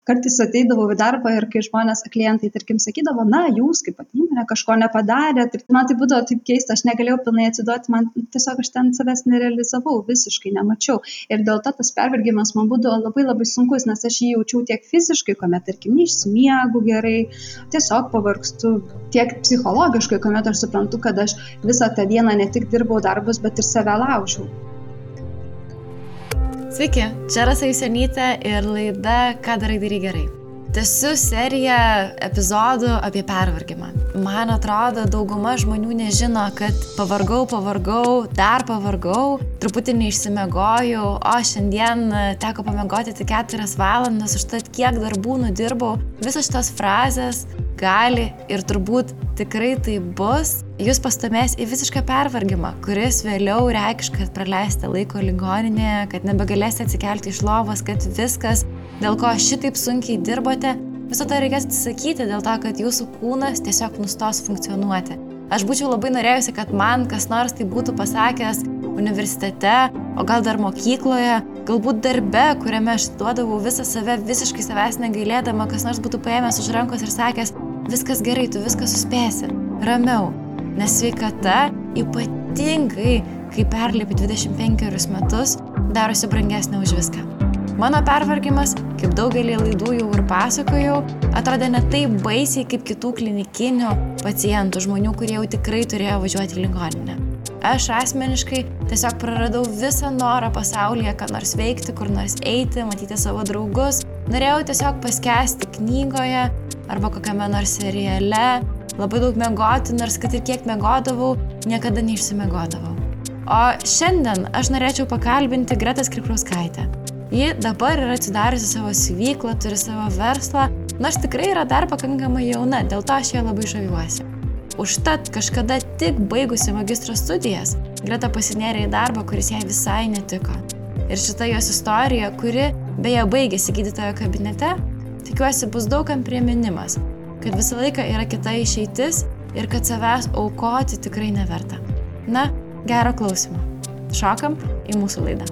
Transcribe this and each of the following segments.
Kartais ateidavau į darbą ir kai žmonės, klientai, tarkim, sakydavo, na, jūs kaip pat įmonė kažko nepadarėt. Ir man tai būdavo taip keista, aš negalėjau pilnai atsiduoti, man tiesiog aš ten savęs nerealizavau, visiškai nemačiau. Ir dėl to tas pervargimas man būdavo labai labai sunkus, nes aš jį jaučiau tiek fiziškai, kuomet, tarkim, neišsimiegu gerai, tiesiog pavargstu, tiek psichologiškai, kuomet aš suprantu, kad aš visą tą dieną ne tik dirbau darbus, bet ir save laužiau. Sveiki, čia Rasa Jusionytė ir laida Ką darai gerai. Tęsiu seriją epizodų apie pervargimą. Man atrodo, dauguma žmonių nežino, kad pavargau, dar pavargau, truputį neišsimiegojau, o šiandien teko pamiegoti tik 4 valandas, užtat kiek darbų nudirbau. Visos šitos frazės gali ir turbūt tikrai tai bus, jūs pastumės į visišką pervargimą, kuris vėliau reikš, kad praleisite laiko ligoninėje, kad nebegalėsite atsikelti iš lovos, kad viskas, dėl ko šitaip sunkiai dirbote, viso to reikės atsisakyti dėl to, kad jūsų kūnas tiesiog nustos funkcionuoti. Aš būčiau labai norėjusi, kad man kas nors tai būtų pasakęs universitete, o gal dar mokykloje, galbūt darbe, kuriame aš duodavau visą save, visiškai savęs negailėdama, kas nors būtų paėmęs už rankos ir sakęs, viskas gerai, tu viską suspėsi, ramiau, nes sveikata, ypatingai, kai perlipi 25 metus, darosi brangesnė už viską. Mano pervargimas, kaip daugelį laidų jau ir pasakojau, atrodė ne taip baisiai kaip kitų klinikinių pacientų, žmonių, kurie jau tikrai turėjo važiuoti į ligoninę. Aš asmeniškai tiesiog praradau visą norą pasaulyje, ką nors veikti, kur nors eiti, matyti savo draugus. Norėjau tiesiog paskęsti knygoje arba kokiame nors seriale, labai daug miegoti, nors kad ir kiek miegodavau, niekada neišsimiegodavau. O šiandien aš norėčiau pakalbinti Gretą Skripkauskaitę. Ji dabar yra atsidariusi savo siuvyklą, turi savo verslą, nors tikrai yra dar pakankamai jauna, dėl to aš ją labai žaviuosi. Užtat kažkada tik baigusi magistro studijas, Greta pasinėrė į darbą, kuris jai visai netiko. Ir šita jos istorija, kuri beje baigėsi gydytojo kabinete, tikiuosi bus daugam priminimas, kad visą laiką yra kita išeitis ir kad savęs aukoti tikrai neverta. Na, gero klausimo. Šokam į mūsų laidą.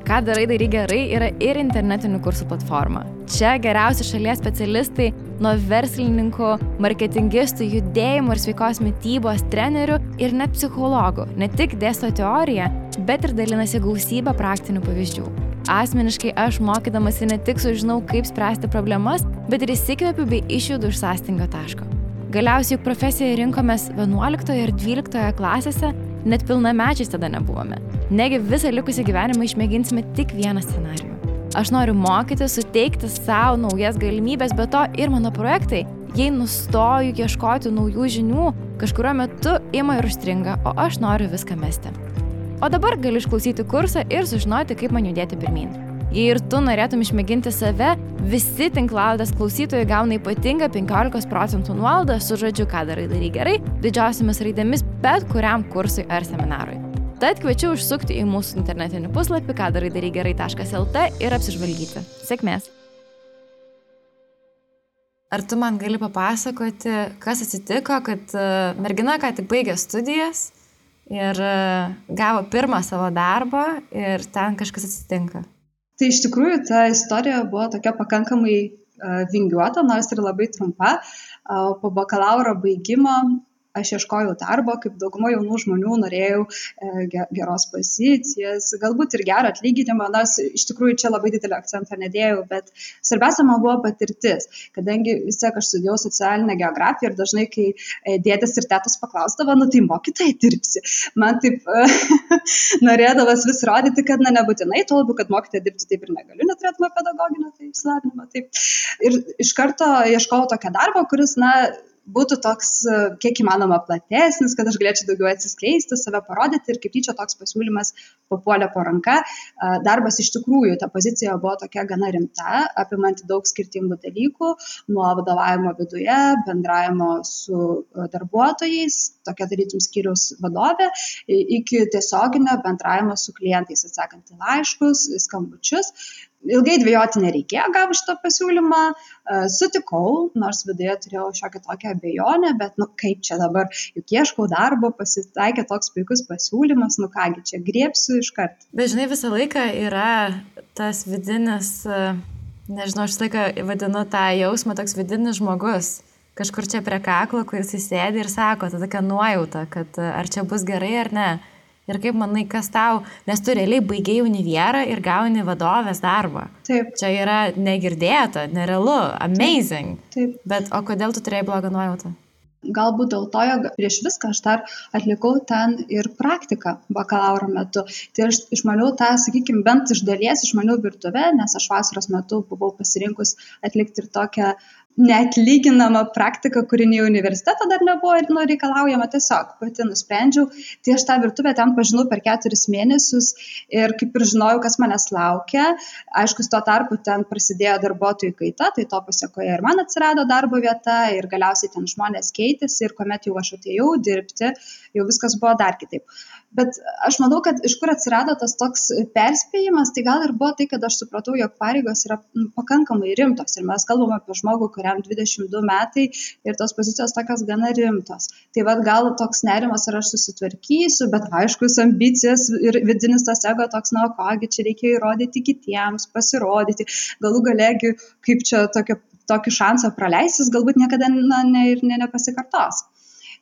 Ką darai gerai yra ir internetinių kursų platforma. Čia geriausi šalies specialistai nuo verslininkų, marketingistų, judėjimo ir sveikos mitybos trenerių ir net psichologų. Ne tik dėsto teoriją, bet ir dalinasi gausybę praktinių pavyzdžių. Asmeniškai aš mokydamasi ne tik sužinau, kaip spręsti problemas, bet ir įsikvėpiu bei išjudu iš sąstingio taško. Galiausiai juk profesiją rinkomės 11 ir 12 klasėse, net pilnamečiais tada nebuvome. Negi visą likusį gyvenimą išmėginsime tik vieną scenarijų. Aš noriu mokyti, suteikti savo naujas galimybės, bet to ir mano projektai, jei nustoju ieškoti naujų žinių, kažkurio metu ima ir užstringa, o aš noriu viską mesti. O dabar gali išklausyti kursą ir sužinoti, kaip man judėti pirmyn. Jei ir tu norėtum išmėginti save, visi tinklalaidės klausytojai gauna ypatingą 15% nuolaidą su žodžiu Ką darai gerai, didžiausiamis raidėmis bet kuriam kursui ar seminarui. Tad kviečiu užsukti į mūsų internetinį puslapį kadarai-gerai.lt ir apsižvalgyti. Sėkmės! Ar tu man gali papasakoti, kas atsitiko, kad mergina ką tik baigė studijas ir gavo pirmą savo darbą ir ten kažkas atsitinka? Tai iš tikrųjų ta istorija buvo tokia pakankamai vingiuota, nors ir labai trumpa. Po bakalauro baigimo aš ieškojau darbo, kaip dauguma jaunų žmonių norėjau geros pozicijas, galbūt ir gerą atlyginimą, nors iš tikrųjų čia labai didelį akcentą nedėjau, bet svarbiausia man buvo patirtis, kadangi vis tiek aš studijavau socialinę geografiją ir dažnai, kai dėdės ir tetos paklausdavo, tai mokytojai dirbsi. Man taip norėdavas vis rodyti, kad nebūtinai, tuo labiau, kad mokytojai dirbti taip ir negaliu, neturėtume pedagoginio išsilavinimo. Ir iš karto ieškojau tokio darbo, kuris, būtų toks kiek įmanoma platesnis, kad aš galėčiau daugiau atsiskleisti, save parodyti ir kaip tyčia toks pasiūlymas papuolė po ranka. Darbas iš tikrųjų, ta pozicija buvo tokia gana rimta, apimanti daug skirtingų dalykų, nuo vadovavimo viduje, bendravimo su darbuotojais, tokia tarytum skyriaus vadovė, iki tiesioginio bendravimo su klientais, atsakant į laiškus, skambučius. Ilgai dvejoti nereikėjo, gavau šitą pasiūlymą, sutikau, nors viduje turėjau šiokią tokią abejonę, bet kaip čia dabar, juk ieškau darbo, pasitaikė toks puikus pasiūlymas, kągi čia griebsiu iškart. Bet žinai, visą laiką yra tas vidinis Nežinau, aš laiką vadinu tą jausmą toks vidinis žmogus. Kažkur čia prie kaklo, kuris įsėdi ir sako, ta tokia nuojauta, kad ar čia bus gerai ar ne. Ir kaip manai, kas tau, nes tu realiai baigei univerą ir gauni vadovės darbą. Taip. Čia yra negirdėta, nerealu, amazing. Taip. Bet o kodėl tu turėjai blogą nuojautą? Galbūt dėl to, jog prieš viską aš dar atlikau ten ir praktiką bakalauro metu. Tai aš išmaniau tą, sakykime, bent iš dalies išmaniau virtuvę, nes aš vasaros metu buvau pasirinkus atlikti ir tokią neatlyginamą praktiką, kuri nei universiteto dar nebuvo reikalaujama, tiesiog pati nusprendžiau. Tai aš tą virtuvę ten pažinau per 4 mėnesius ir kaip ir žinojau, kas manęs laukia. Aišku, tuo tarpu ten prasidėjo darbuotojų kaita, tai to pasiekoje ir man atsirado darbo vieta ir galiausiai ten žmonės keitėsi ir kuomet jau aš atėjau dirbti, jau viskas buvo dar kitaip. Bet aš manau, kad iš kur atsirado tas toks perspėjimas, tai gal ir buvo tai, kad aš supratau, jog pareigos yra pakankamai rimtos ir mes kalbame apie žmogų, kuriam 22 metai ir tos pozicijos tokios gana rimtos. Tai vad gal toks nerimas, ar aš susitvarkysiu, bet aiškus ambicijas ir vidinis tas ego toks, na, kogi čia reikia įrodyti kitiems, pasirodyti, galų galėgi, kaip čia tokį šansą praleisis, galbūt niekada nepasikartos.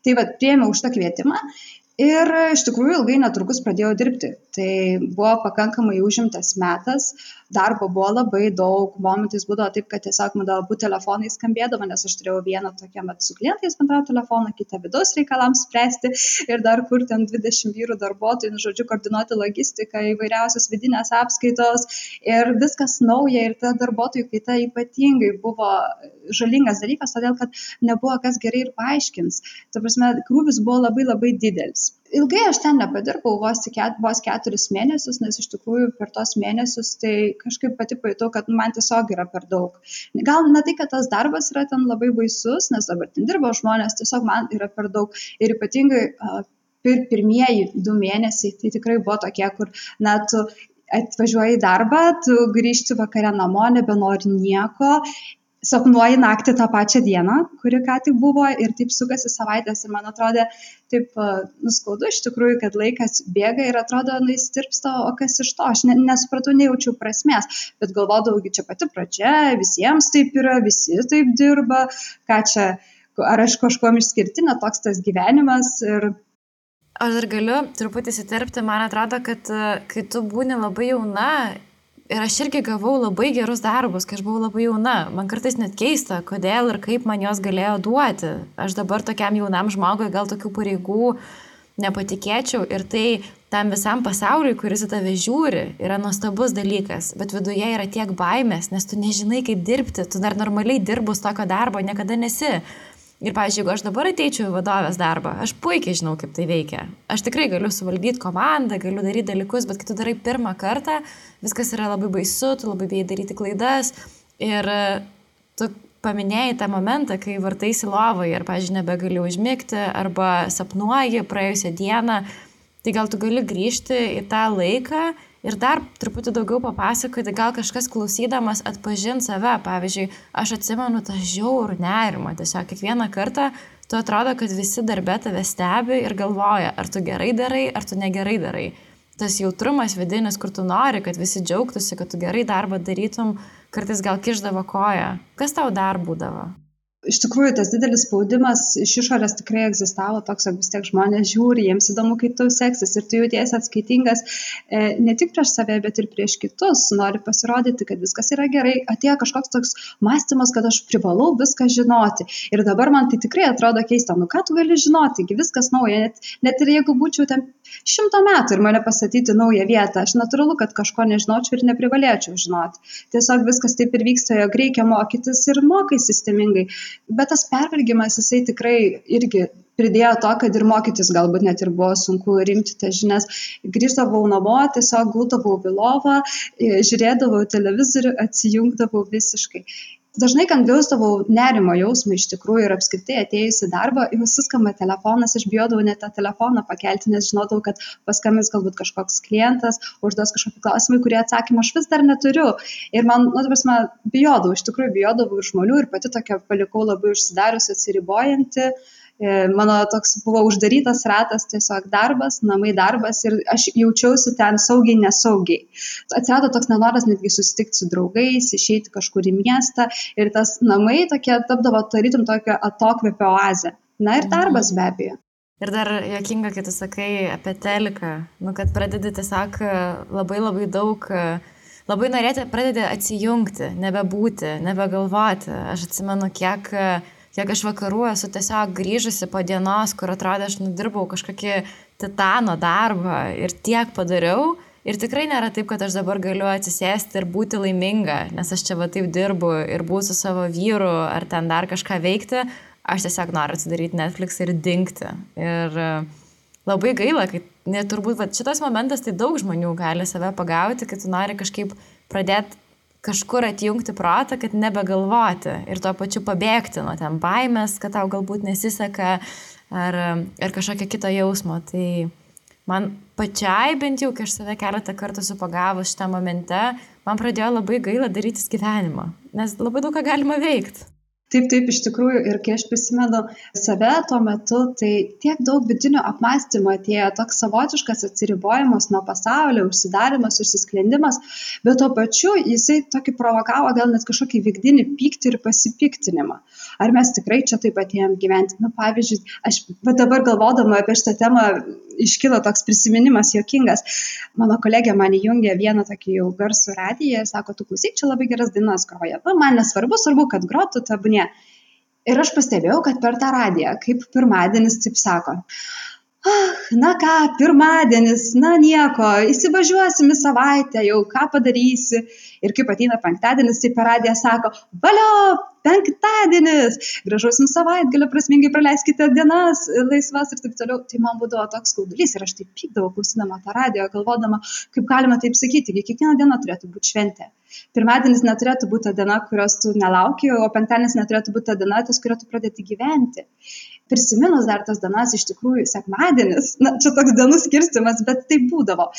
Tai vad priėmiau už tą kvietimą. Ir iš tikrųjų ilgai netrukus pradėjau dirbti. Tai buvo pakankamai užimtas metas, darbo buvo labai daug, momentais būdavo taip, kad tiesiog man abu telefonai skambėdavo, nes aš turėjau vieną tokią su klientais bendravo telefoną, kitą vidaus reikalams spręsti ir dar kur ten 20 vyrų darbuotojų, žodžiu, koordinuoti logistiką, įvairiausios vidinės apskaitos ir viskas nauja ir ta darbuotojų kaita ypatingai buvo žalingas dalykas, todėl kad nebuvo kas gerai ir paaiškins. Ta prasme, krūvis buvo labai labai didelis. Ilgai aš ten nepadirbau, vos 4 mėnesius, nes iš tikrųjų per tos mėnesius tai kažkaip pati pajutau, kad man tiesiog yra per daug. Gal ne tai, kad tas darbas yra ten labai baisus, nes dabar ten dirbo žmonės, tiesiog man yra per daug. Ir ypatingai pirmieji 2 mėnesiai tai tikrai buvo tokie, kur tu atvažiuoji į darbą, tu grįžti vakare namo, nebenori nieko. Sapnuoji naktį tą pačią dieną, kuri ką tik buvo ir taip sukasi savaitės ir man atrodė taip nuskaudu iš tikrųjų, kad laikas bėga ir atrodo, įstirpsta, o kas iš to, aš nesupratau, nejaučiau prasmės, bet galvodavau, čia pati pradžia, visiems taip yra, visi taip dirba, ką čia, ar aš kažkuom išskirtinė, toks tas gyvenimas ir... Aš dar galiu truputį įsiterpti, man atrodo, kad kai tu būni labai jauna, ir aš irgi gavau labai gerus darbus, kai aš buvau labai jauna. Man kartais net keista, kodėl ir kaip man jos galėjo duoti. Aš dabar tokiam jaunam žmogui gal tokių pareigų nepatikėčiau ir tai tam visam pasauliui, kuris į tave žiūri, yra nuostabus dalykas, bet viduje yra tiek baimės, nes tu nežinai, kaip dirbti, tu dar normaliai dirbus tokio darbo niekada nesi. Ir, pavyzdžiui, jeigu aš dabar ateičiau į vadovės darbą, aš puikiai žinau, kaip tai veikia. Aš tikrai galiu suvaldyti komandą, galiu daryti dalykus, bet kai tu darai pirmą kartą, viskas yra labai baisu, tu labai bijai daryti klaidas. Ir tu paminėjai tą momentą, kai vartaisi lovoje ir, pavyzdžiui, nebegali užmigti arba sapnuoji praėjusią dieną, tai gal tu gali grįžti į tą laiką ir dar truputį daugiau papasakoti, gal kažkas klausydamas atpažint save. Pavyzdžiui, aš atsimenu tą žiaurų nerimą. Tiesiog kiekvieną kartą tu atrodo, kad visi darbe tave stebi ir galvoja, ar tu gerai darai, ar tu negerai darai. Tas jautrumas vidinis, kur tu nori, kad visi džiaugtųsi, kad tu gerai darbą darytum, kartais gal kišdavo koją. Kas tau dar būdavo? Iš tikrųjų, tas didelis spaudimas iš išorės tikrai egzistavo, toks, kad vis tiek žmonės žiūri, jiems įdomu, kaip tau seksis ir tu jautiesi atskaitingas ne tik prieš save, bet ir prieš kitus, nori pasirodyti, kad viskas yra gerai, atėjo kažkoks toks mąstymas, kad aš privalau viską žinoti ir dabar man tai tikrai atrodo keista, ką tu gali žinoti, viskas nauja, net ir jeigu būčiau ten 100 metų ir mane pastatyti naują vietą, aš natūralu, kad kažko nežinočiau ir neprivalėčiau žinoti. Tiesiog viskas taip ir vyksta, jog reikia mokytis ir mokai sistemingai. Bet tas pervargimas, jisai tikrai irgi pridėjo to, kad ir mokytis galbūt net ir buvo sunku rimti tas žinias. Grįždavau namo, tiesiog guldavau į lovą, žiūrėdavau televizorių, atsijungdavau visiškai. Dažnai, kai jausdavau nerimo jausmą iš tikrųjų ir apskritai atėjus į darbą, jau suskamba telefonas, aš bijodavau net tą telefoną pakelti, nes žinodavau, kad paskambins galbūt kažkoks klientas, užduos kažkokį klausimą, kurį atsakymą aš vis dar neturiu. Ir man, bijodavau, iš tikrųjų bijodavau ir žmonių ir pati tokia palikau labai užsidarius, atsiribojanti. Mano toks buvo uždarytas ratas, tiesiog darbas, namai darbas ir aš jaučiausi ten saugiai, nesaugiai. Atsirado toks nenoras netgi susitikti su draugais, išeiti kažkur į miestą ir tas namai tokie tapdavo tarytum tokio atokvėpio oazė. Na ir darbas be abejo. Ir dar juokinga, kai tu sakai apie teliką, kad pradedi tiesiog labai daug, labai norėti, pradedi atsijungti, nebebūti, nebegalvoti. Aš atsimenu, kiek aš vakarų esu tiesiog grįžusi po dienos, kur atrodė, aš nudirbau kažkokį titano darbą ir tiek padariau. Ir tikrai nėra taip, kad aš dabar galiu atsisėsti ir būti laiminga, nes aš čia va taip dirbu ir būsiu su savo vyru ar ten dar kažką veikti. Aš tiesiog noriu atsidaryti Netflix ir dingti. Ir labai gaila, kad turbūt šitas momentas tai daug žmonių gali save pagauti, kad tu nori kažkaip pradėti kažkur atjungti protą, kad nebegalvoti ir tuo pačiu pabėgti nuo ten baimės, kad tau galbūt nesiseka ar kažkokio kito jausmo. Tai man pačiai bent jau, kai aš save keletą kartų esu pagavus šitą momente, man pradėjo labai gaila darytis gyvenimą, nes labai daug ką galima veikti. Taip, iš tikrųjų, ir kai aš prisimenu save tuo metu, tai tiek daug vidinio apmąstymo atėjo, toks savotiškas atsiribojimas nuo pasaulio, užsidarimas, užsisklendimas, bet tuo pačiu jisai tokį provokavo gal net kažkokį vidinį pyktį ir pasipiktinimą. Ar mes tikrai čia taip atėjom gyventi? Pavyzdžiui, aš dabar galvodama apie šitą temą iškilo toks prisiminimas juokingas. Mano kolegė man įjungė vieną tokį jau garsų radiją ir sako, tu klausyk, čia labai geras dainas groja. Man nesvarbu, kad grotų tebūnie. Ir aš pastebėjau, kad per tą radiją, kaip pirmadienis, taip sako, na ką, pirmadienis, na nieko, įsivažiuosim į savaitę, jau ką padarysi. Ir kaip ateina penktadienis, tai per radiją sako, valio, penktadienis, gražaus jums savaitgalio, prasmingai praleiskite dienas, laisvas ir taip toliau. Tai man būdavo toks skaudulys ir aš taip pykdavau, klausydama tą radiją, galvodama, kaip galima taip sakyti, kiekviena diena turėtų būti šventė. Pirmadienis neturėtų būti ta diena, kurios tu nelauki, o penktadienis neturėtų būti ta diena, ties kurią tu pradėti gyventi. Prisiminus dar tas dienas, iš tikrųjų, sekmadienis, čia toks dienų skirstimas, bet tai būdavo.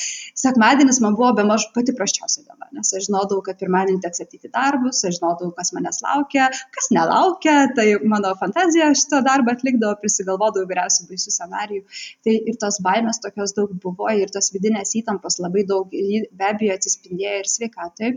Sekmadienis man buvo bemaž pati prasčiausia diena, nes aš žinodavau, kad pirmadienį teks ateiti darbus, aš žinodavau, kas manęs laukia, kas nelaukia, tai mano fantazija šitą darbą atlikdavo, prisigalvodavau įvairiausių baisių scenarijų. Tai ir tos baimės tokios daug buvo ir tos vidinės įtampos labai daug, be abejo atsispindėjo ir sveikatai.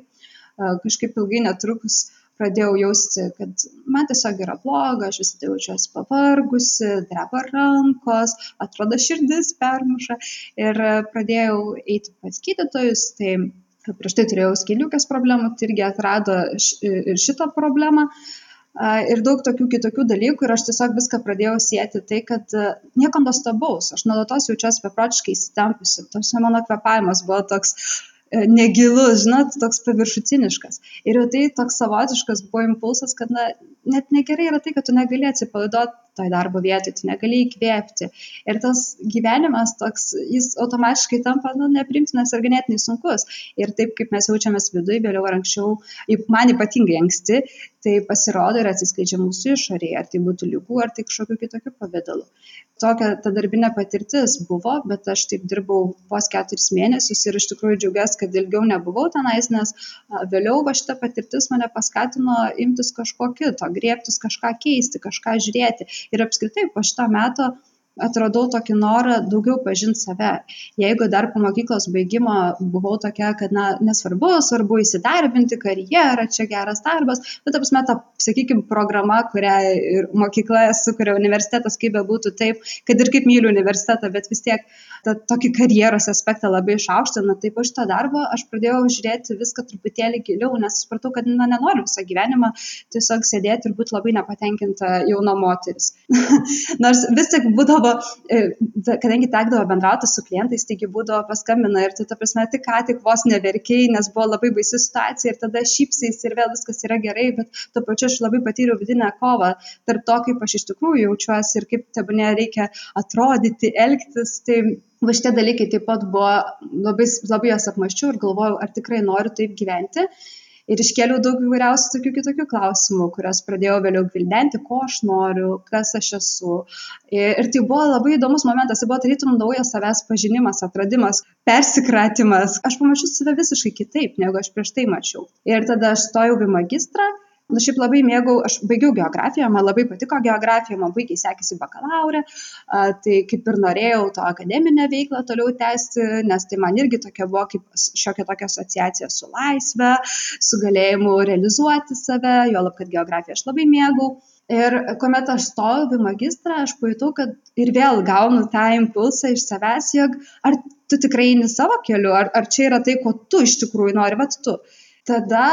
Kažkaip ilgai netrukus pradėjau jausti, kad man tiesiog yra bloga, aš visada jaučiuosi pavargusi, dreba rankos, atrodo širdis permuša ir pradėjau eiti pas gydytojus, tai prieš tai turėjau skydliaukės problemų, tai irgi atrado ir šitą problemą ir daug tokių kitokių dalykų ir aš tiesiog viską pradėjau sieti tai, kad nieko nuostabaus, aš nuolatos jaučiuosi beprotiškai įsitempusi, mano kvėpavimas buvo toks negilus, žinot, toks paviršutiniškas. Ir jau tai toks savotiškas buvo impulsas, kad net negerai yra tai, kad tu negali atsipalaiduoti toj darbo vietoj, tu negali įkvėpti. Ir tas gyvenimas toks, jis automatiškai tampa nepriimtinas ir ganėtinai sunkus. Ir taip, kaip mes jaučiamės viduje, vėliau ar anksčiau, man ypatingai anksti, tai pasirodo ir atsiskleidžia mūsų išorėje, ar tai būtų ligų, ar tai kažkokiu kitokiu pavidalu. Tokia ta darbinė patirtis buvo, bet aš taip dirbau vos 4 mėnesius ir iš tikrųjų džiaugiuosi, kad ilgiau nebuvau tenais, nes vėliau šita patirtis mane paskatino imtis kažko kito, griebtis kažką keisti, kažką žiūrėti. Ir apskritai po šito meto atradau tokį norą daugiau pažinti save. Jeigu dar po mokyklos baigimo buvau tokia, kad svarbu įsidarbinti, karjerą, čia geras darbas, bet apsme ta, sakykime, programa, kurią ir mokykla sukuria universitetas, kaip bebūtų taip, kad ir kaip myliu universitetą, bet vis tiek tokį karjeros aspektą labai išaukština, tai po šito darbo aš pradėjau žiūrėti viską truputėlį giliau, nes supratau, kad nenoriu visą gyvenimą tiesiog sėdėti ir būti labai nepatenkinta jauna moteris. Nors vis tik būdavo, kadangi tekdavo bendrauti su klientais, taigi būdavo paskambina ir tu, ta prasme, tik vos neverkiai, nes buvo labai baisi situacija ir tada šypsais ir vėl viskas yra gerai, bet tuo pačiu aš labai patyriau vidinę kovą tarp to, kaip aš iš tikrųjų jaučiuosi ir kaip tebūnie reikia atrodyti, elgtis. Tai šitie dalykai taip pat buvo, labai jas apmąsčiau ir galvojau, ar tikrai noriu taip gyventi. Ir iškėliau daug įvairiausių tokių kitokių klausimų, kurias pradėjau vėliau gvildenti, ko aš noriu, kas aš esu. Ir tai buvo labai įdomus momentas, tai buvo tarytum naujas savęs pažinimas, atradimas, persikratimas. Aš pamačiau save visiškai kitaip, negu aš prieš tai mačiau. Ir tada aš stojau į magistrą, Šiaip labai mėgau, aš baigiau geografiją, man labai patiko geografija, man puikiai sekėsi bakalaurė, tai kaip ir norėjau to akademinę veiklą toliau tęsti, nes tai man irgi tokia buvo kaip šiokia tokia asociacija su laisve, su galėjimu realizuoti save, juolab, kad geografiją aš labai mėgau. Ir kuomet aš stojau į magistrą, aš pajutau, kad ir vėl gaunu tą impulsą iš savęs, jog ar tu tikrai eini savo keliu, ar čia yra tai, ko tu iš tikrųjų nori, vat tu. Tada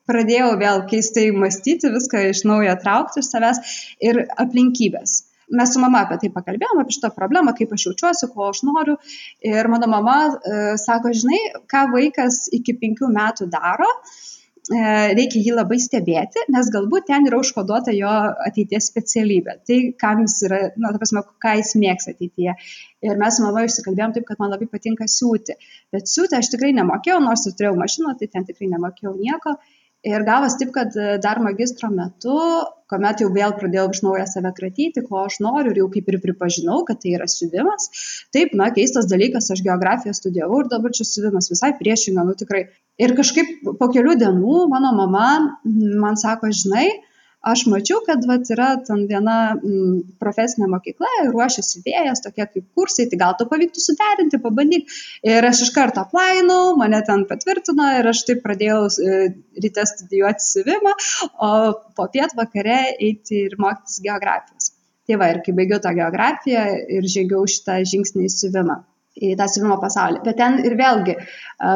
pradėjau vėl keistai mąstyti, viską iš naujo traukti iš savęs ir aplinkybės. Mes su mama apie tai pakalbėjome, apie šitą problemą, kaip aš jaučiuosi, ko aš noriu. Ir mano mama sako, žinai, ką vaikas iki 5 metų daro, reikia jį labai stebėti, nes galbūt ten yra užkoduota jo ateities specialybė. Tai, kam jis yra, ta prasme, ką jis mėgs ateityje. Ir mes su mama išsikalbėjom taip, kad man labai patinka siūti. Bet siūti aš tikrai nemokėjau, nors ir turėjau mašiną, tai ten tikrai nemokėjau nieko. Ir gavos taip, kad dar magistro metu, kuomet jau vėl pradėjau iš naujo save kratyti, ko aš noriu ir jau kaip ir pripažinau, kad tai yra siuvimas. Taip, keistas dalykas, aš geografiją studijavau ir dabar čia siuvimas visai priešinga, tikrai. Ir kažkaip po kelių dienų mano mama man sako, žinai, aš mačiau, kad yra ten viena profesinė mokykla, ruošiasi vėjas, tokie kaip kursai, tai gal to pavyktų suderinti, pabandyk. Ir aš iš karto aplainau, mane ten patvirtino ir aš taip pradėjau ryte studijuoti siuvimą, o po pietvakare eiti ir mokytis geografijos. Tai va, ir kai baigiau tą geografiją ir žengiau šitą žingsnį į siuvimą, į tą siuvimo pasaulį. Bet ten ir vėlgi,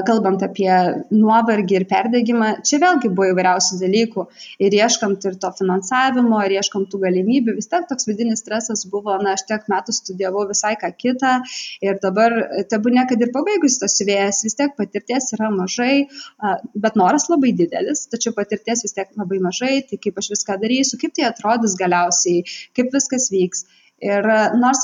kalbant apie nuovargį ir perdegimą, čia vėlgi buvo įvairiausių dalykų. Ir ieškant ir to finansavimo, ir ieškant tų galimybių, vis tiek toks vidinis stresas buvo, aš tiek metų studijavau visai ką kitą. Ir dabar, tebūnie, kad ir pabaigus tas siuvėjas, vis tiek patirties yra mažai, bet noras labai didelis, tačiau patirties vis tiek labai mažai, tai kaip aš viską darysiu, kaip tai atrodys galiausiai, kaip viskas vyks. Ir nors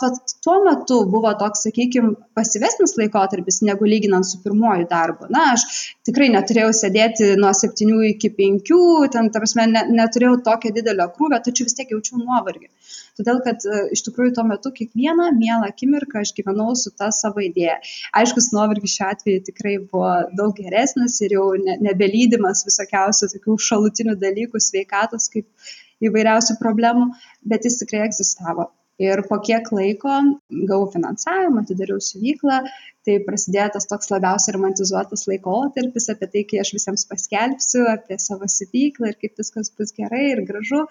tuo metu buvo toks, sakykime, pasyvesnis laikotarpis, negu lyginant su pirmuoju darbu. Aš tikrai neturėjau sėdėti nuo 7 iki 5, ten, ta prasme, neturėjau tokio didelio krūvio, tačiau vis tiek jaučiau nuovargį. Todėl, kad iš tikrųjų tuo metu kiekvieną mielą akimirką aš gyvenau su ta savo idėja. Aiškus, nuovargis šiuo atveju tikrai buvo daug geresnis ir jau nebelydimas visokiausių tokių šalutinių dalykų, sveikatos, kaip įvairiausių problemų, bet jis tikrai egzistavo. Ir po kiek laiko gavau finansavimą, atidariau siuvyklą, tai prasidėjo tas toks labiausiai romantizuotas laikotarpis apie tai, kai aš visiems paskelbsiu apie savo siuvyklą ir kaip viskas bus gerai ir gražu.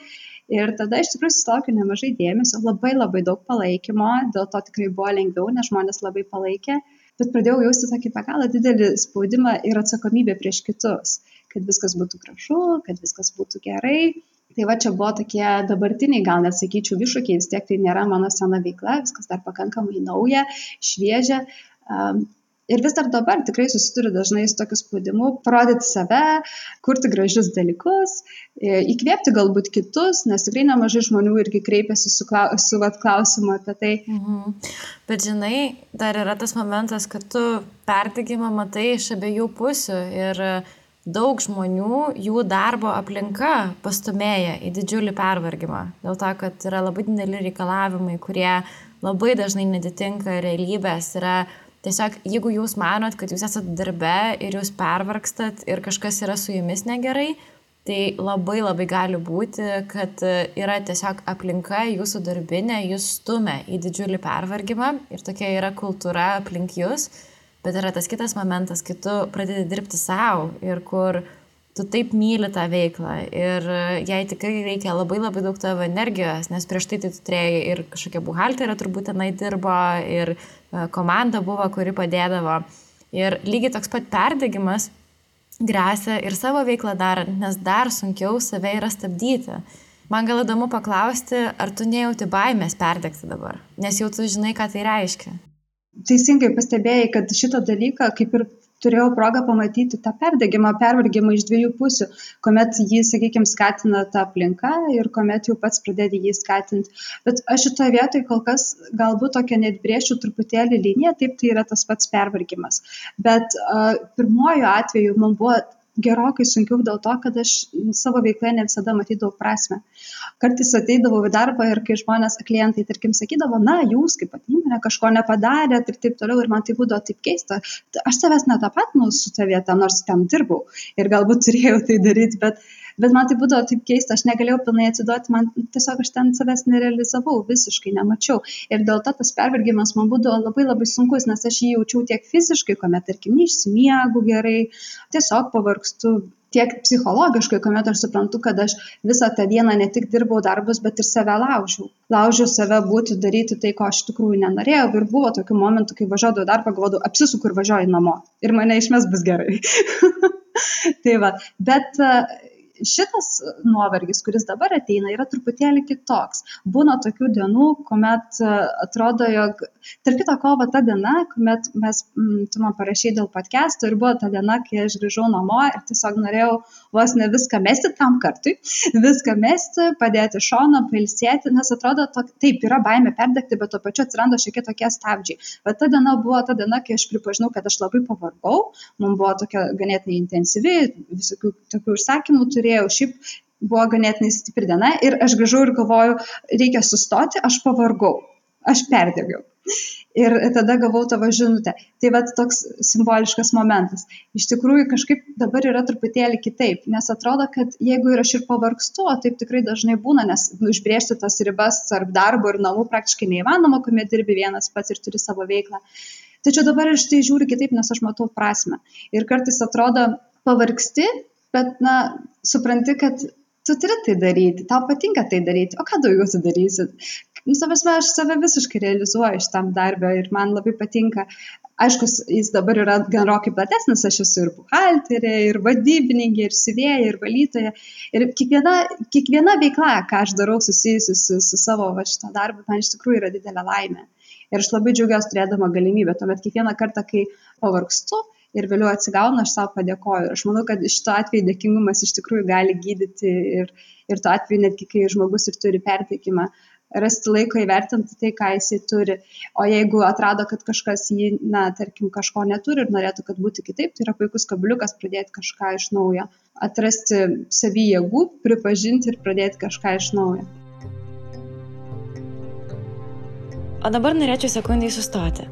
Ir tada iš tikrųjų susilaukiau nemažai dėmesio, labai daug palaikymo, dėl to tikrai buvo lengviau, nes žmonės labai palaikė, bet pradėjau jausti tokį be galo didelį spaudimą ir atsakomybę prieš kitus, kad viskas būtų gražu, kad viskas būtų gerai. Tai va, čia buvo tokie dabartiniai, gal net sakyčiau, iššūkiai, vis tiek tai nėra mano sena veikla, viskas dar pakankamai nauja, šviežia. Ir vis dar dabar tikrai susiduriu dažnai su tokiu spaudimu, parodyti save, kurti gražius dalykus, įkvėpti galbūt kitus, nes tikrai nemažai žmonių irgi kreipiasi su klausimu apie tai. Bet žinai, dar yra tas momentas, kad tu perdegimą matai iš abiejų pusių ir daug žmonių, jų darbo aplinka pastumėja į didžiulį pervargimą. Dėl to, kad yra labai dideli reikalavimai, kurie labai dažnai netitinka realybės. Yra tiesiog, jeigu jūs manot, kad jūs esat darbe ir jūs pervargstat ir kažkas yra su jumis negerai, tai labai gali būti, kad yra tiesiog aplinka jūsų darbinė, jūs stumia į didžiulį pervargimą ir tokia yra kultūra aplink jūs. Bet yra tas kitas momentas, kai tu pradedi dirbti savo ir kur tu taip myli tą veiklą ir jai tikrai reikia labai daug tavo energijos, nes prieš tai tu turėjai ir kažkokia buhalterė turbūt tenai dirbo ir komanda buvo, kuri padėdavo. Ir lygiai toks pat perdegimas gresia ir savo veiklą darant, nes dar sunkiau save yra stabdyti. Man gal įdomu paklausti, ar tu nejauti baimės perdegti dabar, nes jau tu žinai, ką tai reiškia. Teisingai pastebėjai, kad šitą dalyką kaip ir turėjau progą pamatyti tą pervargimą iš dviejų pusių, kuomet jį, sakykime, skatina ta aplinka ir kuomet jau pats pradedi jį skatinti. Bet aš šitoje vietoje kol kas galbūt tokia net brėšiu truputėlį liniją, taip tai yra tas pats pervargimas. Bet pirmojo atveju man buvo gerokai sunkiau dėl to, kad aš savo veikloje ne visada matydavau prasmę. Kartais ateidavau į darbą ir kai žmonės, klientai, tarkim, sakydavo, jūs kaip įmonė kažko nepadarėt ir taip toliau, ir man tai būdavo taip keista. Aš savęs netapatinu su ta vieta, nors ten dirbau ir galbūt turėjau tai daryti, bet Bet man tai būdavo taip keista, aš negalėjau pilnai atsiduoti, man tiesiog aš ten savęs nerealizavau, visiškai nemačiau. Ir dėl to tas pervargimas man būdavo labai labai sunkus, nes aš jį jaučiau tiek fiziškai, kuomet, tarkim, neišsimiegu gerai, tiesiog pavargstu, tiek psichologiškai, kuomet aš suprantu, kad aš visą tą dieną ne tik dirbau darbus, bet ir save laužiau. Laužiau save būti, daryti tai, ko aš iš tikrųjų nenorėjau. Ir buvo tokių momentų, kai važiuodavau darbą, galvodavau, apsisuku ir važiuoju namo. Ir mane išmes bus gerai. Tai va, bet šitas nuovargis, kuris dabar ateina, yra truputėlį kitoks. Būna tokių dienų, kuomet atrodo, jog, tarp kito ko, ta diena, kuomet tu man parašei dėl podcast'o ir buvo ta diena, kai aš grįžau namo ir tiesiog norėjau vos ne viską mesti tam kartui, viską mesti, padėti šoną, pailsėti, nes atrodo, taip, yra baimė perdegti, bet tuo pačiu atsiranda šiek tiek tokie stabdžiai. Bet ta diena buvo ta diena, kai aš pripažinau, kad aš labai pavargau, man buvo tokia ganėtinai intensyvi, visokių tokių užsakymų turėjau, šiaip buvo ganėtinai stipri diena ir aš grįžau ir galvoju, reikia sustoti, aš pavargau, aš perdegiau. Ir tada gavau tavo žinutę. Tai va toks simboliškas momentas. Iš tikrųjų kažkaip dabar yra truputėlį kitaip, nes atrodo, kad jeigu ir aš ir pavargstu, o taip tikrai dažnai būna, nes užbrėžti tas ribas tarp darbo ir namų praktiškai neįmanoma, kuomet dirbi vienas pats ir turi savo veiklą. Tačiau dabar aš tai žiūriu kitaip, nes aš matau prasmę. Ir kartais atrodo pavargsti, bet supranti, kad tu turi tai daryti, tau patinka tai daryti, o ką daugiau tu darysi? Aš save visiškai realizuoju šitam darbę ir man labai patinka. Aišku, jis dabar yra gerokai platesnis, aš esu ir buhalterė, ir vadybininkė, ir siuvėja, ir valytoja. Ir kiekviena veikla, ką aš darau susijusi su savo šitą darbą, man iš tikrųjų yra didelė laimė. Ir aš labai džiaugiuosi turėdama galimybę. Tuomet kiekvieną kartą, kai pavargstu ir vėliau atsigaunu, aš savo padėkoju. Ir aš manau, kad šito atveju dėkingumas iš tikrųjų gali gydyti ir tuo atveju netgi, kai žmogus ir turi pertekimą, rasti laiko įvertinti tai, ką jisai turi. O jeigu atrado, kad kažkas jį, tarkim, kažko neturi ir norėtų, kad būtų kitaip, tai yra puikus kabliukas pradėti kažką iš naujo. Atrasti savy jėgų, pripažinti ir pradėti kažką iš naujo. O dabar norėčiau sekundai sustoti.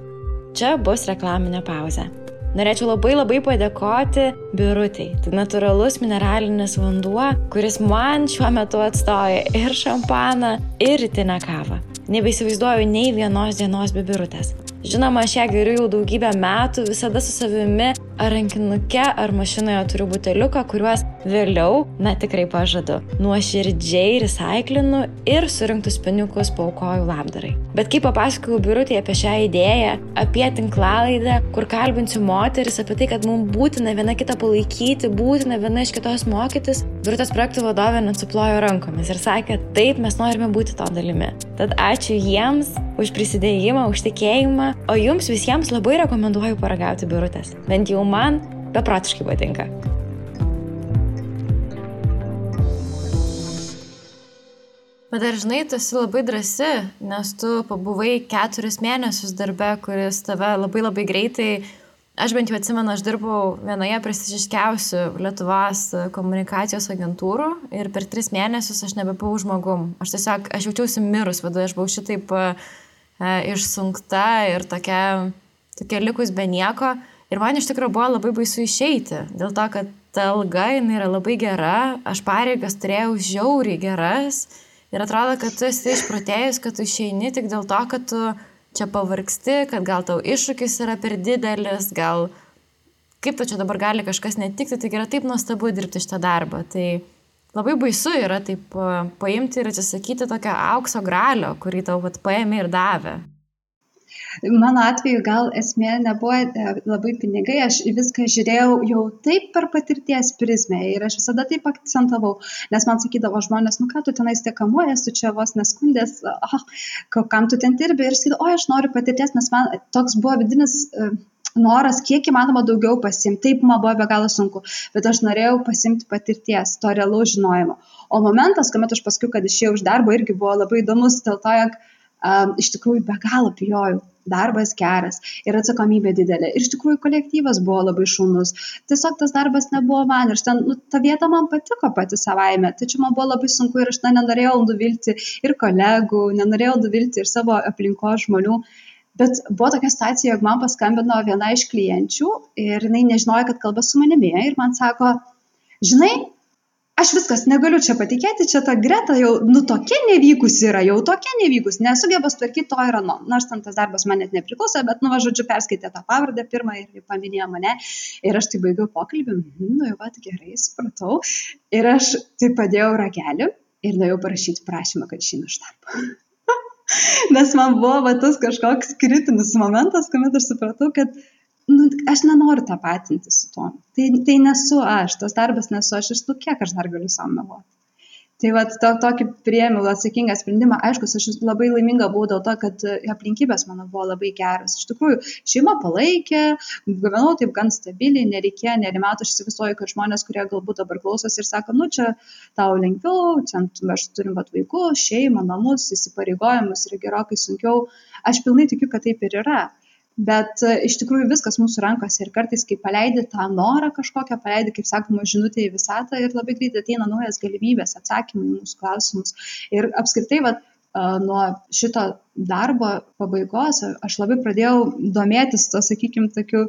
Čia bus reklaminė pauzė. Norėčiau labai padėkoti Birutei. Tai natūralus mineralinis vanduo, kuris man šiuo metu atstoja ir šampaną, ir rytinę kavą. Nebeįsivaizduoju nei vienos dienos be Birutės. Žinoma, aš ją geriu jau daugybę metų, visada su savimi ar rankinuke, ar mašinoje turiu buteliuką, kuriuos vėliau, tikrai pažadu, nuoširdžiai recaiklinu ir surinktus pinigus paaukoju labdarai. Bet kai papasakojau Birutei apie šią idėją, apie tinklalaidę, kur kalbinsiu moteris, apie tai, kad mums būtina viena kitą palaikyti, būtina viena iš kitos mokytis, Birutės projektų vadovė net suplojo rankomis ir sakė, taip, mes norime būti to dalimi. Tad ačiū jiems už prisidėjimą, už tikėjimą, o jums visiems labai rekomenduoju paragauti Birutės. Bent jau man beprotiškai patinka. Bet dar žinai, tu esi labai drąsi, nes tu pabuvai 4 mėnesius darbe, kuris tave labai greitai, aš bent jau atsimenu, aš dirbau vienoje prestižiškiausių Lietuvos komunikacijos agentūrų ir per 3 mėnesius aš nebebuvau žmogum. Aš jaučiausi mirus, vadovai, aš buvau šitaip išsunkta ir tokia likus be nieko. Ir man iš tikrųjų buvo labai baisu išeiti, dėl to, kad ta alga jinai yra labai gera, aš pareigas turėjau žiauriai geras ir atrodo, kad tu esi išprotėjus, kad tu išeini tik dėl to, kad tu čia pavargsti, kad gal tau iššūkis yra per didelis, gal kaip tu čia dabar gali kažkas netikti, tai yra taip nuostabu dirbti šitą darbą. Tai labai baisu yra taip paimti ir atsisakyti tokio aukso gralio, kurį tau paėmė ir davė. Mano atveju gal esmė nebuvo labai pinigai, aš viską žiūrėjau jau taip per patirties prizmę ir aš visada taip akcentavau, nes man sakydavo žmonės, ką tu tenais tiek kamuojas, tu čia vos neskundės, kam tu ten dirbi ir sakydavo, aš noriu patirties, nes man toks buvo vidinis noras, kiek įmanoma daugiau pasimti, taip man buvo be galo sunku, bet aš norėjau pasimti patirties, to realaus žinojimo. O momentas, kuomet aš paskui, kad išėjau iš darbo, irgi buvo labai įdomus, dėl to, jog iš tikrųjų be galo bijojau. Darbas geras ir atsakomybė didelė. Ir iš tikrųjų kolektyvas buvo labai šaunus. Tiesiog tas darbas nebuvo man. Ir ta vieta man patiko pati savaime. Tačiau man buvo labai sunku ir aš nenorėjau nuvilti ir kolegų, nenorėjau nuvilti ir savo aplinkos žmonių. Bet buvo tokia situacija, jog man paskambino viena iš klienčių ir jinai nežinojo, kad kalba su manimi. Ir man sako, žinai, aš viskas negaliu čia patikėti, čia ta Greta jau, tokia nevykusi yra, nesugeba sutvarkyti to ir ano. Nors ten tas darbas man net nepriklauso, bet, žodžiu, perskaitė tą pavardę pirmą ir paminėjo mane. Ir aš tai baigiau pokalbį, jau pat gerai, supratau. Ir aš tai padėjau ragelį ir nuėjau parašyti prašymą, kad išeinu iš darbo. Nes man buvo tas kažkoks kritinis momentas, kuomet aš supratau, kad aš nenoriu tapatinti su tuo. Tai nesu aš, tas darbas nesu aš, kiek aš dar galiu savo meluoti. Tai tokį priėmiau atsakingą sprendimą. Aišku, aš labai laiminga buvau dėl to, kad aplinkybės mano buvo labai geras. Iš tikrųjų, šeima palaikė, gyvenau taip gan stabiliai, nereikėjo, nerimato, aš įsivaizduoju, kad žmonės, kurie galbūt dabar klausosi ir sako, čia tau lengviau, čia aš turim vaikų, šeimą, namus, įsipareigojimus ir gerokai sunkiau. Aš pilnai tikiu, kad taip ir yra. Bet iš tikrųjų viskas mūsų rankose ir kartais, kai paleidi tą norą kažkokią, paleidi, kaip sakoma, žinutę į visatą ir labai greitai ateina naujas galimybės, atsakymai į mūsų klausimus. Ir apskritai, nuo šito darbo pabaigos aš labai pradėjau domėtis to, sakykime, tokiu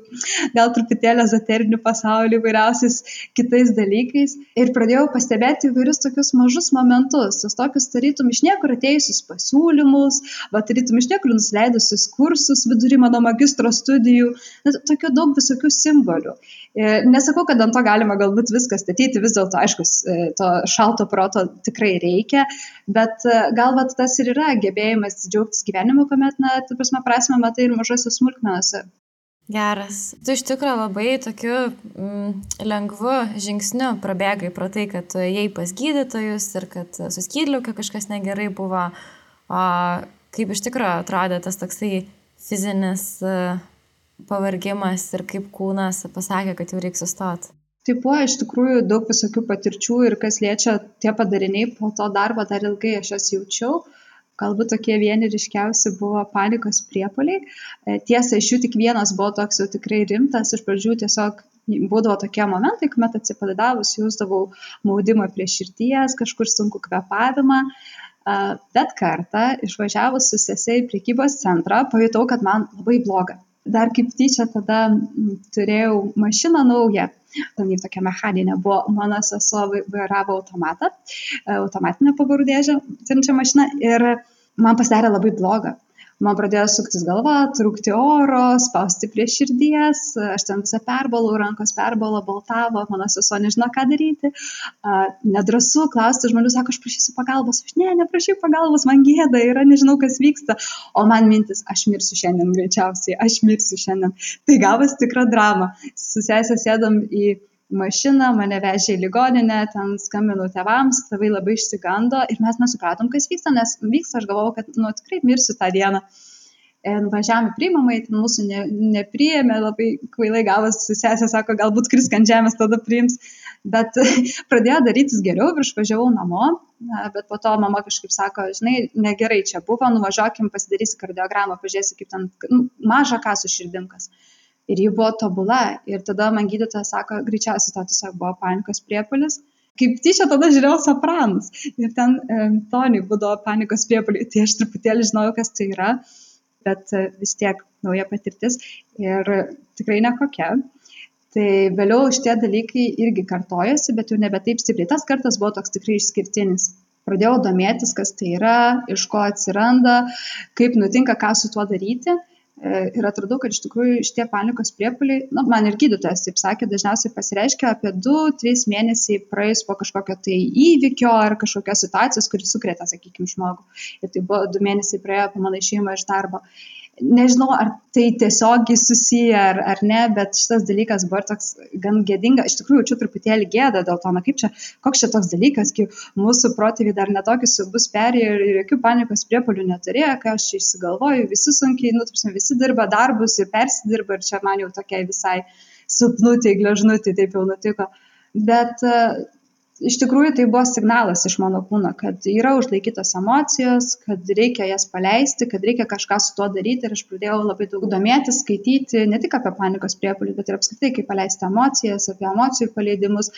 gal truputėlį ezoteriniu pasauliu, įvairiausiais kitais dalykais ir pradėjau pastebėti įvairius tokius mažus momentus, tos tokius tarytum iš niekur atėjusius pasiūlymus, tarytum iš niekur nusileidusius kursus vidury mano magistro studijų, tokių daug visokių simbolių. Nesakau, kad ant to galima galbūt viską statyti, vis dėlto, aišku, to šalto proto tikrai reikia, bet gal tas ir yra gebėjimas džiaugtis gyvenimu, kuomet, prasme matai ir mažose smulkmenose. Geras. Tu iš tikrųjų labai tokiu lengvu žingsniu prabėgai pro tai, kad tu ėjai pas gydytojus ir kad su skydliauke kažkas negerai buvo. O kaip iš tikrųjų atrodė tas toksai fizinis pavargimas ir kaip kūnas pasakė, kad jau reikia sustoti? Tai buvo iš tikrųjų daug visokių patirčių ir kas liečia tie padariniai po to darbo, dar ilgai aš jas jaučiau. Galbūt tokie vieni ryškiausi buvo panikos priepuoliai. Tiesa, iš jų tik vienas buvo toks jau tikrai rimtas. Iš pradžių tiesiog būdavo tokie momentai, kuomet atsipalaidavus jausdavau maudimą prie širdies, kažkur sunku kvėpavimą. Bet kartą išvažiavus su sese į prekybos centrą, pajutau, kad man labai bloga. Dar kaip tyčia tada turėjau mašiną naują. Ten jau tokia mechaninė buvo, mano sesuo vairavo automatinę pavarų dėžę, turinčią mašiną ir man pasidarė labai bloga. Man pradėjo suktis galva, trūkti oro, spausti prie širdies, aš ten visą perbalau, rankos perbalo, baltavo, mano sesuo nežino, ką daryti. Nedrąsu klausti žmonių, sako, aš prašysiu pagalbos, aš neprašysiu pagalbos, man gėda yra, nežinau, kas vyksta. O man mintis, aš mirsiu šiandien greičiausiai, aš mirsiu šiandien. Tai gavas tikra drama. Su sesė sėdom į mašiną, mane vežė į ligoninę, ten skambinau tėvams, tėvai labai išsigando ir mes nesupratom, kas vyksta, nes vyksta, aš galvojau, kad tikrai mirsiu tą dieną. Važiavome į priimamąjį, ten mūsų nepriėmė, labai kvailai gavas, sesė sako, galbūt krisk ant žemės, tada priims, bet pradėjo darytis geriau ir išvažiavau namo, bet po to mama kažkaip sako, žinai, negerai čia buvo, nuvažiuokim, pasidarysi kardiogramą, pažiūrėsi, kaip ten maža ką su širdimkas. Ir ji buvo tobula. Ir tada man gydytojas sako, greičiausiai to tiesiog buvo panikos priepuolis. Kaip tyčia tada žiūrėjau Sopranus. Ir ten Tony būdavo panikos priepuoliai. Tai aš truputėlį žinojau, kas tai yra. Bet vis tiek nauja patirtis. Ir tikrai nekokia. Tai vėliau šitie dalykai irgi kartojasi, bet jau nebe taip stipriai. Tas kartas buvo toks tikrai išskirtinis. Pradėjau domėtis, kas tai yra, iš ko atsiranda, kaip nutinka, ką su tuo daryti. Ir atradau, kad iš tikrųjų šitie panikos priepuoliai, man ir gydytojas taip sakė, dažniausiai pasireiškia apie 2-3 mėnesiai praėjus po kažkokio tai įvykio ar kažkokios situacijos, kuris sukrėtė, sakykime, žmogų. Ir tai buvo 2 mėnesiai praėjo po mano išėjimą iš darbo. Nežinau, ar tai tiesiogiai susiję ar ne, bet šitas dalykas buvo toks gan gėdinga. Iš tikrųjų, čia truputėlį gėda dėl to, koks čia toks dalykas, kai mūsų protėviai dar netokius siaubus perėjo ir jokių panikos priepuolių neturėjo, kai aš čia išsigalvoju, visi sunkiai, visi dirba darbus ir persidirba ir čia man jau tokia visai silpnutė, gležnutė taip jau nutiko. Bet iš tikrųjų tai buvo signalas iš mano kūno, kad yra užlaikytos emocijos, kad reikia jas paleisti, kad reikia kažką su tuo daryti ir aš pradėjau labai daug domėtis, skaityti ne tik apie panikos priepuolį, bet ir apskritai, kaip paleisti emocijas, apie emocijų paleidimus.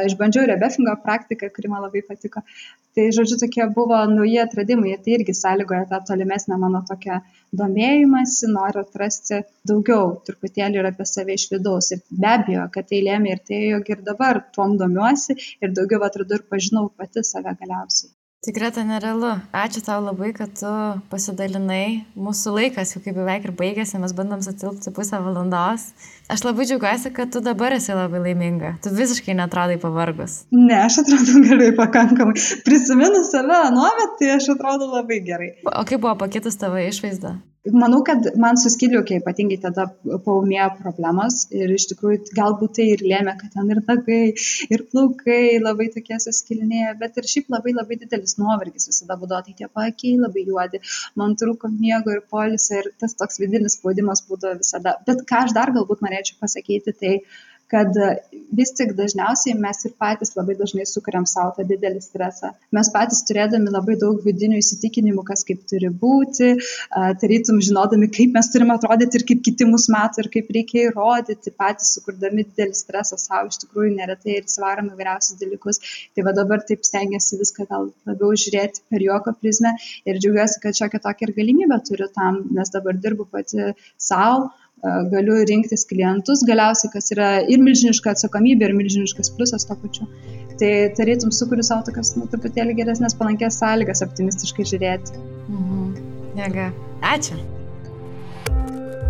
Išbandžiau rebefingą praktiką, kuri man labai patiko. Tai, žodžiu, tokie buvo nauji atradimai ir tai irgi sąlygoja tą tolimesnę mano tokią domėjimąsi, noriu atrasti daugiau truputėlį ir apie save iš vidaus. Ir be abejo, kad tai lėmė ir tai, jog ir dabar tuom domiuosi ir daugiau atradau ir pažinau pati save galiausiai. Tikrai tai nerealu. Ačiū tau labai, kad tu pasidalinai. Mūsų laikas jau kaip beveik ir baigėsi, mes bandom sutilpti pusę valandos. Aš labai džiaugiuosi, kad tu dabar esi labai laiminga. Tu visiškai netrodai pavargus. Ne, aš atrodau gerai pakankamai. Prisiminus save anuomet, tai aš atrodau labai gerai. O kaip buvo pakitus tavo išvaizda? Manau, kad man su skydliaukė ypatingai tada paūmėjo problemos ir iš tikrųjų galbūt tai ir lėmė, kad ten ir nagai, ir plaukai labai tokie suskilinėję, bet ir šiaip labai labai didelis nuovargis visada būdavo, tai tie paakiai labai juodi, man trūko miego ir poilsio ir tas toks vidinis spaudimas būdavo visada. Bet ką aš dar galbūt norėčiau pasakyti, tai kad vis tik dažniausiai mes ir patys labai dažnai sukuriam savo tą didelį stresą. Mes patys turėdami labai daug vidinių įsitikinimų, kas kaip turi būti, tarytum žinodami, kaip mes turime atrodyti ir kaip kiti mus mato ir kaip reikia įrodyti, patys sukurdami didelį stresą savo iš tikrųjų neretai ir svarom įvairiausius dalykus. Tai va dabar taip stengiasi viską gal labiau žiūrėti per juoko prizmę ir džiaugiuosi, kad šiokią tokią ir galimybę turiu tam, nes dabar dirbu pati savo. Galiu rinktis klientus, galiausiai, kas yra ir milžiniška atsakomybė, ir milžiniškas pliusas to pačiu. Tai tarytum sukuriu savo tokias truputėlį geresnės palankės sąlygas optimistiškai žiūrėti. Jėga. Ačiū.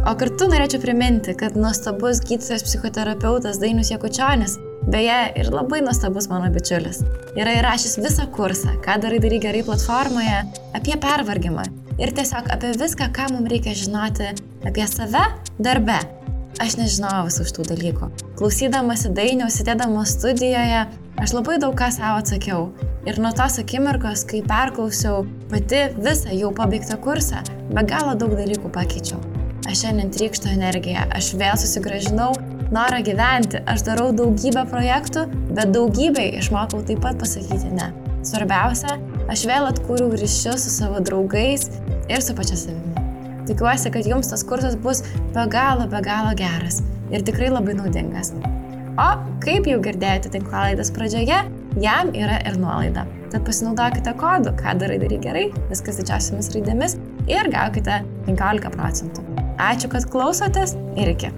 O kartu norėčiau priminti, kad nuostabus gydytojas psichoterapeutas Dainius Jakučionis, beje, ir labai nuostabus mano bičiulis, yra įrašęs visą kursą, ką darai gerai platformoje, apie pervargimą. Ir tiesiog apie viską, ką mums reikia žinoti apie save darbe. Aš nežinojau visų šitų dalykų. Klausydamasi Dainiaus, sėdėdama studijoje, aš labai daug ką savo atsakiau. Ir nuo tos akimirkos, kai perklausiau pati visą jau pabaigtą kursą, be galo daug dalykų pakeičiau. Aš šiandien trykštu energiją, aš vėl susigrąžinau norą gyventi. Aš darau daugybę projektų, bet daugybei išmokau taip pat pasakyti ne. Svarbiausia, aš vėl atkūriau ryšius su savo draugais ir su pačia savimi. Tikiuosi, kad jums tas kursas bus be galo geras ir tikrai labai naudingas. O kaip jau girdėjote tinklalaidės pradžioje, jam yra ir nuolaida. Tad pasinaudokite kodu, ką darai gerai, viskas didžiausiamis raidėmis ir gaukite 15%. Ačiū, kad klausotės ir iki.